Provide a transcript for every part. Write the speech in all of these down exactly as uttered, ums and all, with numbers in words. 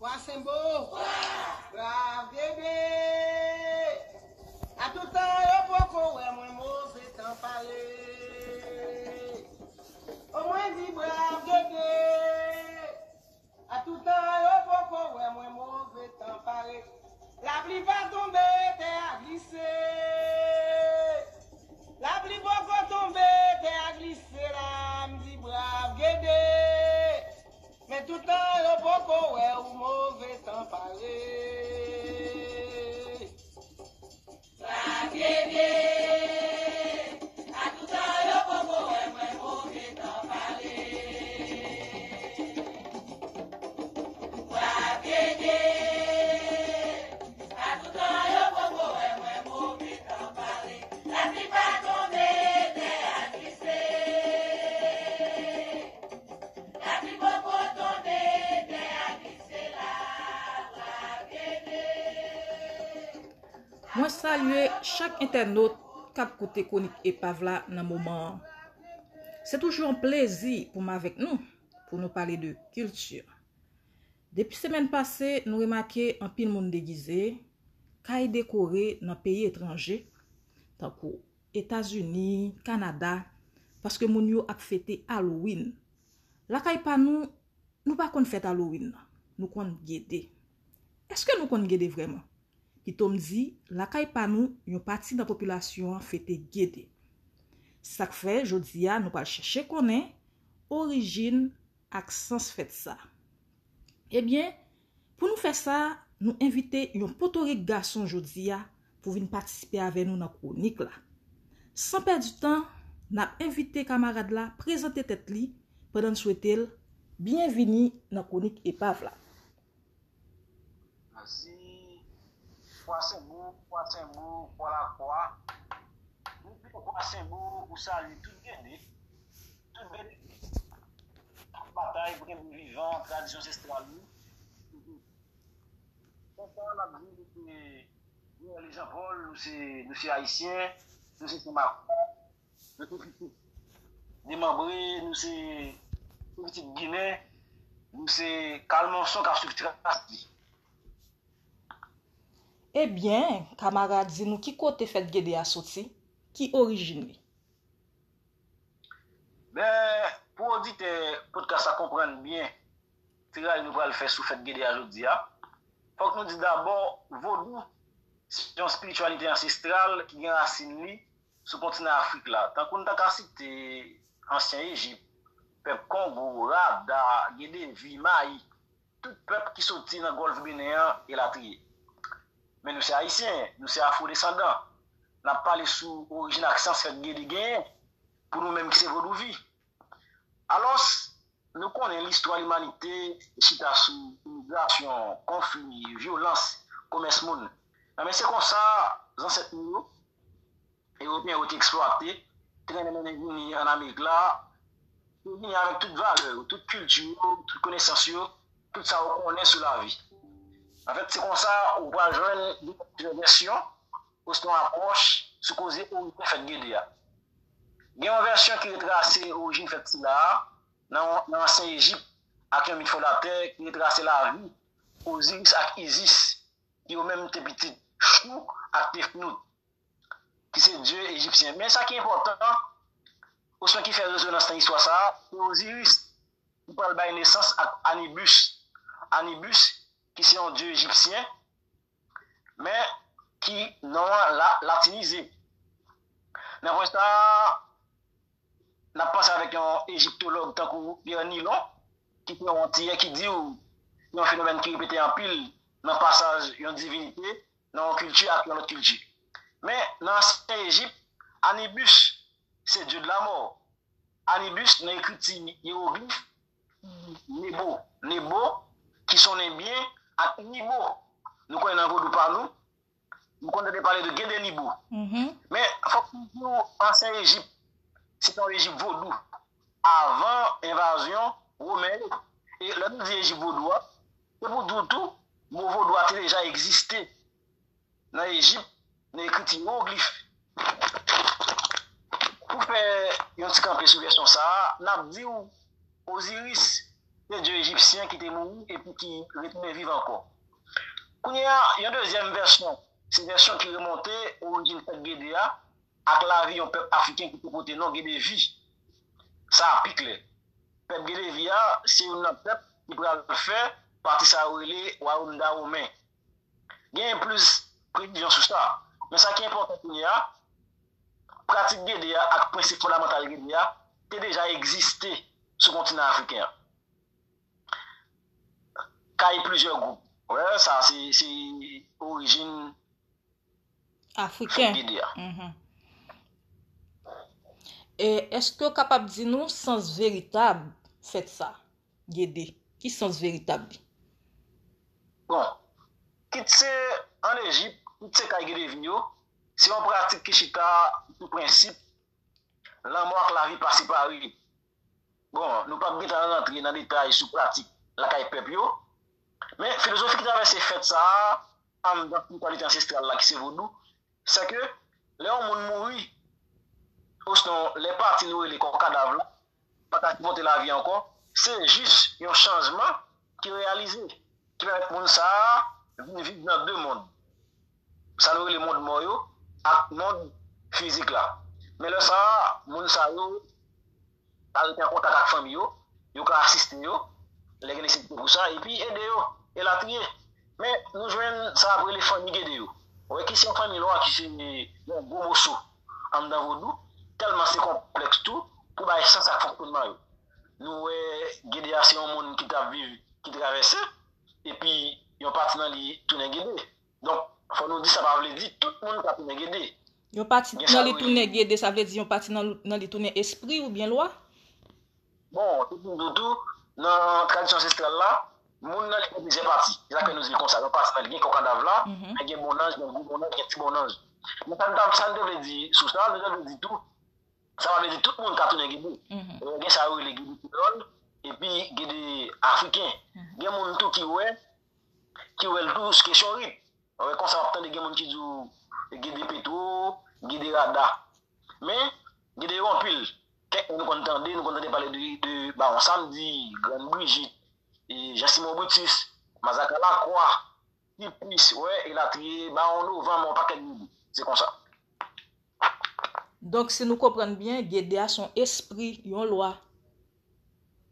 Vwa Senbo, Brav Gede. A tout tan yo poko wè mwen, move tan pale. O mwen di Brav Gede. A tout tan yo poko wè mwen, move tan pale. Lapli pa tonbe, tè a glise. Lapli poko tonbe, tè a glise la, m di Brav Gede. Men tout tan yo poko wè ou, move tan pale. Brav Gede. A tout tan yo poko wè mwen, move tan pale. Brav Gede. A tout tan yo poko wè mwen, move tan pale. Lapli pa tonbe, tè a glise. Lapli poko tonbe, tè a glise la, Brav Gede. Mwen salye chak entènot k ap koute kwonik epav la nan moman an. Se toujou yon plezi pou m avèk nou, pou nou pale de kilti. Depi semèn pase, nou remake anpil moun degize, kay dekore nan peyi etranje, tankou Etazini, Kanada, paske moun yo ap fete Halloween. Lakay pa nou, nou pa konn fèt Halloween nan, nou konn Gede. Èske nou konn Gede vrèman? Pito m di, lakay pa nou, yon pati nan popilasyon an fete Gede. Sa k fè, jodi a, nou pral chèche konnen orijin ak sans fèt sa. Ebyen, pou nou fè sa, nou envite yon potorik gason jodi a pou vin patisipe avè nou nan kwonik la. San pèdi tan, n ap envite kamarad la prezante tèt li pandan n swete l byenvini nan kwonik epav la. Mèsi. Vwa Senbo, Vwa Senbo, Vwa Lakwa. Depi Vwa Senbo, ou salye tout Gede, tout Gede k ap batay pou kenbe vivan tradisyon ansestral nou. Konsa, n ap di nou se Noël Jean Paul, nou se, nou se Ayisyen, nou se Senmakwa, nou se pitit demanbre, nou se, nou pitit Ginen, nou se Kalmonson k ap swiv tras li. Ebyen, kamarad, di nou ki kote fèt Gede a soti, ki orijin li? Ben, pou oditè podcast la konprann byen tray nou pral fè sou fèt Gede a jodi a, fòk nou di dabò, vodou se yon espirityalite ansestral ki gen rasin li sou kontinan Afrik la. Tankou n ta ka site ansyen Ejip, pèp Kongo, Rada, Gedevi, Mayi, tout pèp ki soti nan Gòlf Benen an, elatriye. Men nou se Ayisyen, nou se afwodesandan. N ap pale sou orijin ak sans fèt Gede genyen pou nou menm ki se vodouvi. Alòs, nou konnen listwa limanite chita sou imigrasyon, konfli, vyolans, komès moun. Enben, se konsa zansèt nou yo, Ewopeyen yo te eksplwate, te mennen mennen vini ann Amerik la, yo vini avèk tout valè yo, tout kilti yo, tout konesans yo, tout sa yo konnen sou lavi. Anfèt, se konsa ou pral jwenn de vèsyon osnon apwòch sou koze orijin fèt Gede a. Gen yon vèsyon ki retrase orijin fèt sila a nan, nan ansyen Ejip ak yon mit fondatè ki retrase lavi Oziris ak Izis, ki yo menm te pitit Chou ak Tefnout, ki se dye ejipsyen. Men sa ki enpòtan, osnon ki fè rezonans nan istwa sa a, se Oziris ki pral bay nesans ak Anibis. Anibis, ki se yon dye ejipsyen, men ki non an la, latinize. Nan pwen sa a, n ap panse avèk yon ejiptològ tankou Pierre Nilon, ki se yon Antiyè ki di w se yon fenomèn ki repete anpil nan pasaj yon divinite nan yon kilti ak yon lòt kilti. Men, nan ansyen Ejip, Anibis se dye de la mò. Anibis, nan ekriti yewoglif, Nebo. Nebo, ki sonnen byen ak Nibo. Nou konnen nan vodou pa nou, nou konn tande pale de Gede Nibo. Men, fòk nou di w, ansyen Ejip, se te yon Ejip vodou. Avan envazyon Women yo. E lè nou di Ejip vodou a, se pou di w tou, mo vodou a te deja egziste nan Ejip, nan ekriti yewoglif. Pou fè yon ti kanpe sou vèsyon sa a, n ap di w Oziris, de dye ejipsyen ki te mouri epi ki retounen viv ankò. Kounye a, yon dezyèm vèsyon, se vèsyon ki remonte orijin fèt Gede a ak lavi yon pèp afriken ki te pote non Gedevi. Sa a pi klè. Pèp Gedevi a se youn nan pèp ki pral fè pati sa yo rele Wayòm Dawomen. Genyen plis presizyon sou sa. Men sa ki enpòtan kounye a, pratik Gede a ak prensip fondamantal Gede a te deja egziste sou kontinan afriken an. Kay plizyè gwoup. Wè, sa se se orijin fèt Afriken. Gede a. Mhm. E èske w kapab di nou sans veritab fèt sa, Gede? Ki sans veritab li? Bon, kit se ann Ejip, kit se kay Gedevi yo, se yon pratik ki chita sou prensip lanmò ak lavi pa separe. Bon, nou p ap gentan rantre nan detay sou pratik lakay pèp yo, men filozofi ki travèse fèt sa a anndan espirityalite ansestral la ki se vodou, se ke lè yon moun mouri, osnon lè pati nou rele kò kadav la pa ka sipòte lavi ankò, se jis yon chanjman ki reyalize, ki pèmèt moun sa a vin viv nan de mond. Sa nou rele mond mò yo ak mond fizik la. Men lè sa a, moun sa yo ka rete an kontak ak fanmi yo, yo ka asiste yo, lè gen nesesite pou sa, epi ede yo, elatriye. Men nou jwenn sa ap rele fanmi Gede yo. Wè ki se yon fanmi lwa ki se yon gwo moso anndan vodou, tèlman se konplèks tou pou bay sans ak fonksyonman yo. Nou wè Gede a se yon moun ki t ap viv, ki travèse, epi yon pati nan li tounen Gede. Donk, fò nou di sa pa vle di tout moun ka tounen Gede. Yon pati nan li tounen Gede, sa vle di yon pati nan li tounen espri oubyen lwa? Bon, tout moun di w tou, nan tradisyon ansestral la, moun nan li gen plizyè pati. Se sa k fè nou di l konsa. Yon pati nan li gen kò kadav la, men gen bonnanj, gen gwo bonnanj, gen ti bonnanj. Men sa n ta sa n te vle di sou sa, nou te vle di tou, sa pa vle di tout moun ka tounen Gede. Gen sa yo rele Gede kreyòl, epi Gede afriken. Gen moun tou ki wè, ki wè l tou sou kesyon rit. Wè konsa w ap tande gen moun ki di w Gede Petwo, Gede Rada. Men, Gede yo anpil. Kèk moun nou konn tande, nou konn tande pale de, de Bawon Samdi, Grann Brijit, e Jan Simon Britis, Mazaka Lakwa, Tipis, wè, elatriye, Bawon Novanm, yon pakèt moun. Se konsa. Donk, si nou konprann byen, Gede a se yon espri, yon lwa.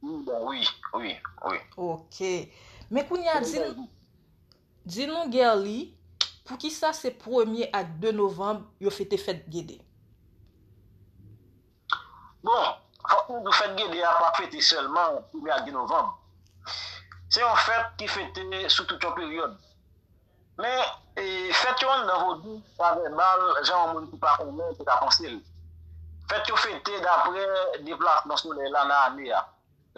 Wi, bon, wi, wi, wi. Ok. Men kounye a, di, di nou, Guerly, poukisa se premye ak de novanm yo fete fèt Gede? Bon, fòk nou di w fèt Gede a pa fete sèlman premye ak de novanm. Se yon fèt ki fete sou tout yon peryòd. Men, e, fèt yo anndan vodou pa vèbal jan yon moun ki pa konnen te ka panse l. Fèt yo fete dapre deplasman solèy la nan ane a.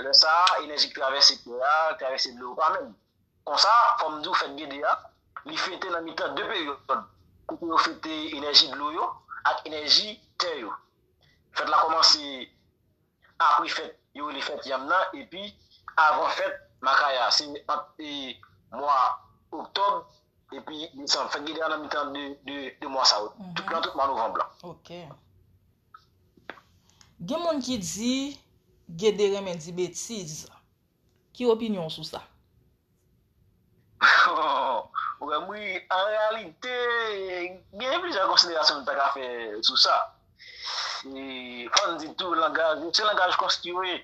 Lè sa a, enèji k travèse tè a, k travèse dlo yo pa menm. Konsa, fò m di w fèt Gede a, li fete nan mitan de peryòd, kote yo fete enèji dlo yo ak enèji tè yo. Fèt la kòmanse apre fèt yo rele fèt yanm nan, epi avan fèt makaya, se ant e, mwa oktòb epi desanm. Fèt Gede a nan mitan de, de, de mwa sa yo, tout, nan tout mwa novanm lan. Ok. Gen moun ki di Gede renmen di betiz. Ki opinyon w sou sa? Ou wè m ri, an reyalite, gen plizyè konsiderasyon nou ta ka fè sou sa. E, fò n di tou, langaj, se langaj konstwi.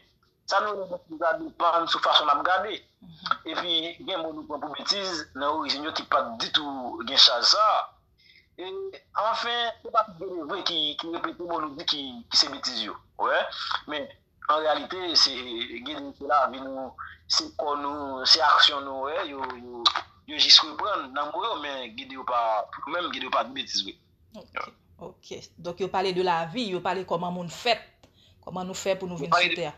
Sa nou rele betiz la depann sou fason n ap gade. Epi, gen mo nou pran pou betiz nan orijin yo ki pa t ditou gen chaj sa a. E, anfen, se pa tout Gede vre ki, ki repete mo nou di ki, ki se betiz yo. Ou wè? Men, an reyalite, se Gede se lavi nou, se kò nou, se aksyon nou, wè, yo, yo, yo jis reprann nan mo yo, men Gede yo pa, pou nou menm, Gede yo pa di betiz vre. Ok, ok. Donk yo pale de lavi, yo pale kòman moun fèt, kòman nou fè pou nou vin sou tè a.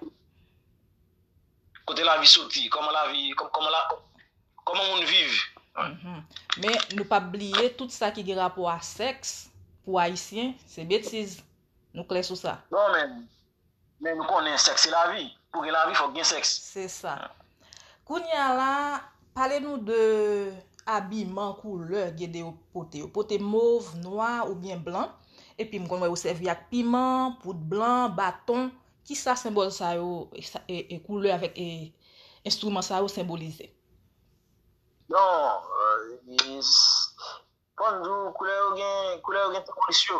Kote lavi soti, kòman lavi, kòman la, kòman moun viv. Men nou p ap bliye tout sa ki gen rapò a sèks, pou Ayisyen, se betiz. Nou klè sou sa? Non, men, men nou konnen sèks se lavi. Pou gen lavi, fòk gen sèks. Se sa. Kounye a la, pale nou de abiman, koulè Gede yo pote. Yo pote mov, nwa oubyen blan. Epi m konn wè yo sèvi ak piman, poud blan, baton. Kisa senbòl sa yo, e, e, koulè avèk e, enstriman sa yo senbolize? Non, euh, fò n di w, koulè yo gen, koulè yo gen senbolis yo.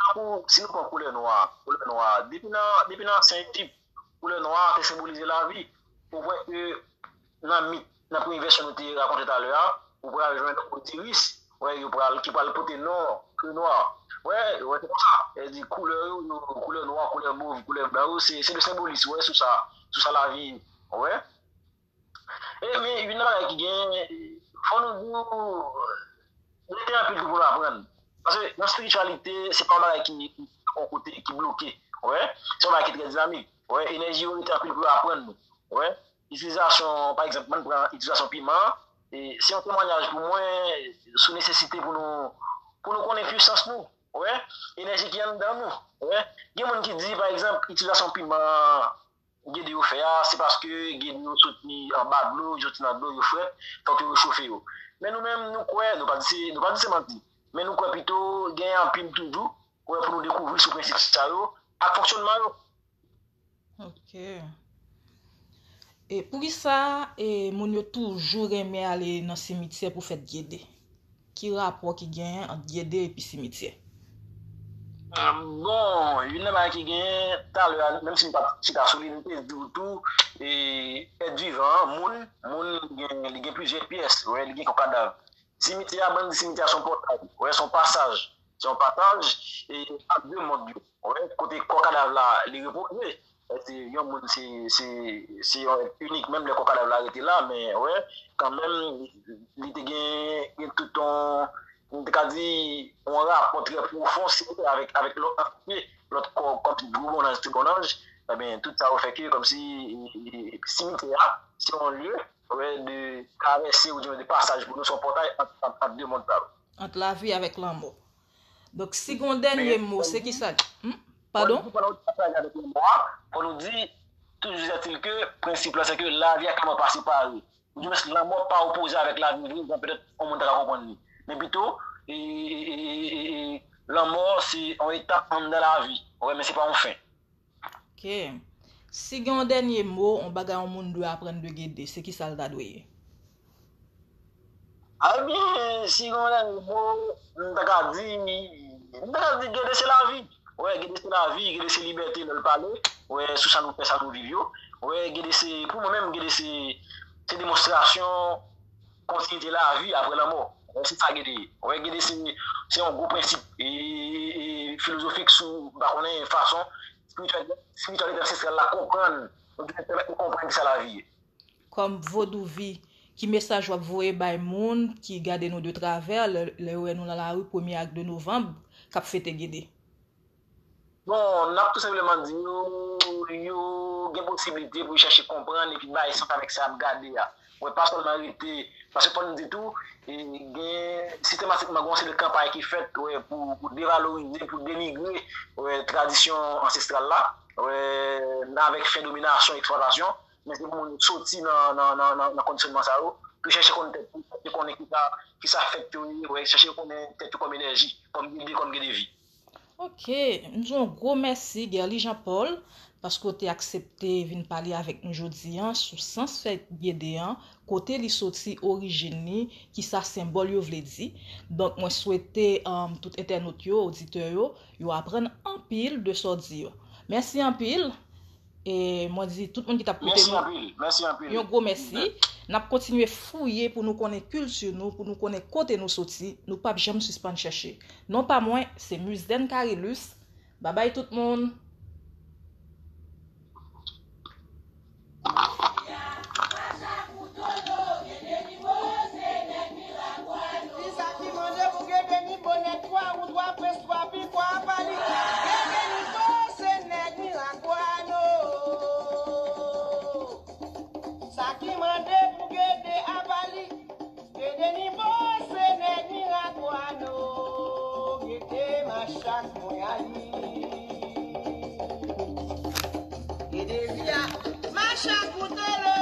Tankou, si nou pran koulè nwa, koulè nwa, depi nan, depi nan ansyen Ejip, koulè nwa te senbolize lavi. Ou wè ke nan mit, nan premye vèsyon nou te rakonte talè a, ou pral jwenn Osiris, wè, yo pral, ki pral pote non, ke nwa. Wè, wè, se konsa. E di koulè yo, yo, koulè nwa, koulè mov, koulè blan yo, se, se de senbolis, wè, sou sa, sou sa lavi, wè. E, men, youn nan bagay ki gen, fò nou di w, rete anpil tou pou nou aprann. Paske nan espirityalite, se pa yon bagay ki, ki yon kote, ki bloke. Wè? Se yon bagay ki trè dinamik. Wè? Enèji yo rete anpil pou yo aprann nou. Wè? Itilizasyon, pa egzanp, mwen pran itilizasyon piman an, e se yon temwanyaj pou mwen sou nesesite pou nou, pou nou konnen pisans nou. Wè? Enèji ki anndan nou. Wè? Gen moun ki di, pa egzanp, itilizasyon piman an, gede yo fè a, se paske gede yo soti anba dlo, yo soti nan dlo, yo frèt, fòk yo rechofe yo. Men nou menm, nou kwè, nou pa di se, nou pa di se manti, men nou kwè pito gen anpil toujou, kwè pou nou dekouvri sou prensip sa yo, ak fonksyònman yo. Ok. E poukisa, e, moun yo toujou renmen ale nan simityè pou fèt gede? Ki rapò ki genyen ant gede epi simityè? Ah, bon, youn nan bagay ki genyen, talè a, menm si m pa t chita sou li, m te di w tou, e, èt vivan an, moun, moun gen, li gen plizyè pyès, wè, li gen kò kadav. Simityè a, ban n di simityè a se yon pòtay, wè, se yon pasaj, se yon pasaj, e, ant de mond yo, wè, kote kò kadav la, li repoze. Se yon moun, se, se, se yon èt inik, menm lè kò kadav la rete la, men, wè, kanmenm, li te gen, gen tout yon, m te ka di, yon rapò trè pwofon, si vle, avèk, avèk lòt antite, lòt kò, kòmsi gwo bonnanj, ti bonnanj, ebyen, tout sa yo fè ke, kòmsi, e, e, simityè a, se yon lye, wè, de travèse, oubyen de pasaj pou nou, se yon pòtay ant, ant, ant de mond sa yo. Ant lavi avèk lanmò. Donk, si gen yon dènye mo, se ki sa? Hmm? Padon? Fò nou di, toujou ètil ke, prensip la, se ke lavi ak lanmò pa separe. Oudimwens, lanmò pa opoze avèk lavi vre, jan petèt yon moun ta ka konprann li. Men pito, e, e, e, e, e, lanmò se yon etap anndan lavi. Wè, men se pa yon fen. Ok. Si gen yon dènye mo, yon bagay yon moun dwe aprann de gede, se ki sa l ta dwe ye? Ebyen, si gen yon dènye mo, m ta ka di, m ta ka di gede se lavi. Wè, gede se lavi, gede se libète lè l pale. Wè, sou sa nou fè, sa nou viv yo. Wè, gede se, pou mwen menm, gede se, se demonstrasyon kontinite lavi apre lanmò. Wè, se sa gede ye. Wè, gede se, se yon gwo prensip, e, e, e, filozofik sou, m pa konnen, fason espirityalite ansestral la konprann, oubyen pèmèt nou konprann kisa lavi ye. Kòm Vodouvi, ki mesaj w ap voye bay moun ki gade nou de travè lè, lè yo wè nou nan lari premye ak de novanm k ap fete gede? Bon, n ap tou senpleman di yo, yo gen posiblite pou yo chèche konprann epi bay sans avèk sa y ap gade a. Wè, pa sèlman rete, paske fò n di tou, e, gen sistematikman gen yon seri de kanpay ki fèt, wè, pou, pou devalorize, pou denigre, wè, tradisyon ansestral la, wè, avèk fen dominasyon, eksplwatasyon, men se pou moun soti nan, nan, nan, nan, nan kondisyonman sa yo, pou chèche konn tèt yo, chèche konnen kisa, kisa fèt yo ye, wè, chèche konnen tèt yo kòm enèji, kòm gede, kòm gede vi. Ok, m di yon gwo mèsi, Guerly Jean Paul, paske w te aksepte vin pale avèk nou jodi a sou sans fèt gede a, kote li soti, orijin li, kisa senbòl yo vle di. Donk, mwen swete, um, tout entènot yo, oditè yo, yo aprann anpil de sa w di yo. Mèsi anpil. E mwen di tout moun ki t ap koute nou, mèsi anpil, mèsi anpil, yon gwo mèsi. N ap kontinye fouye pou nou konnen kilti nou, pou nou konnen kote nou soti. Nou p ap janm sispann chèche. Non pa mwen, se Muzen Carilus. Babay tout moun. Kisa ki mande pou gede ni bonèt twa ou twa prens twa pikwa apa li? Gede ni bo se nèg mirak wano. Sa ki mande pou gede apa li? Gede ni bo se nèg mirak wano. Gede machak mwen ali. Gede via machak koutolo.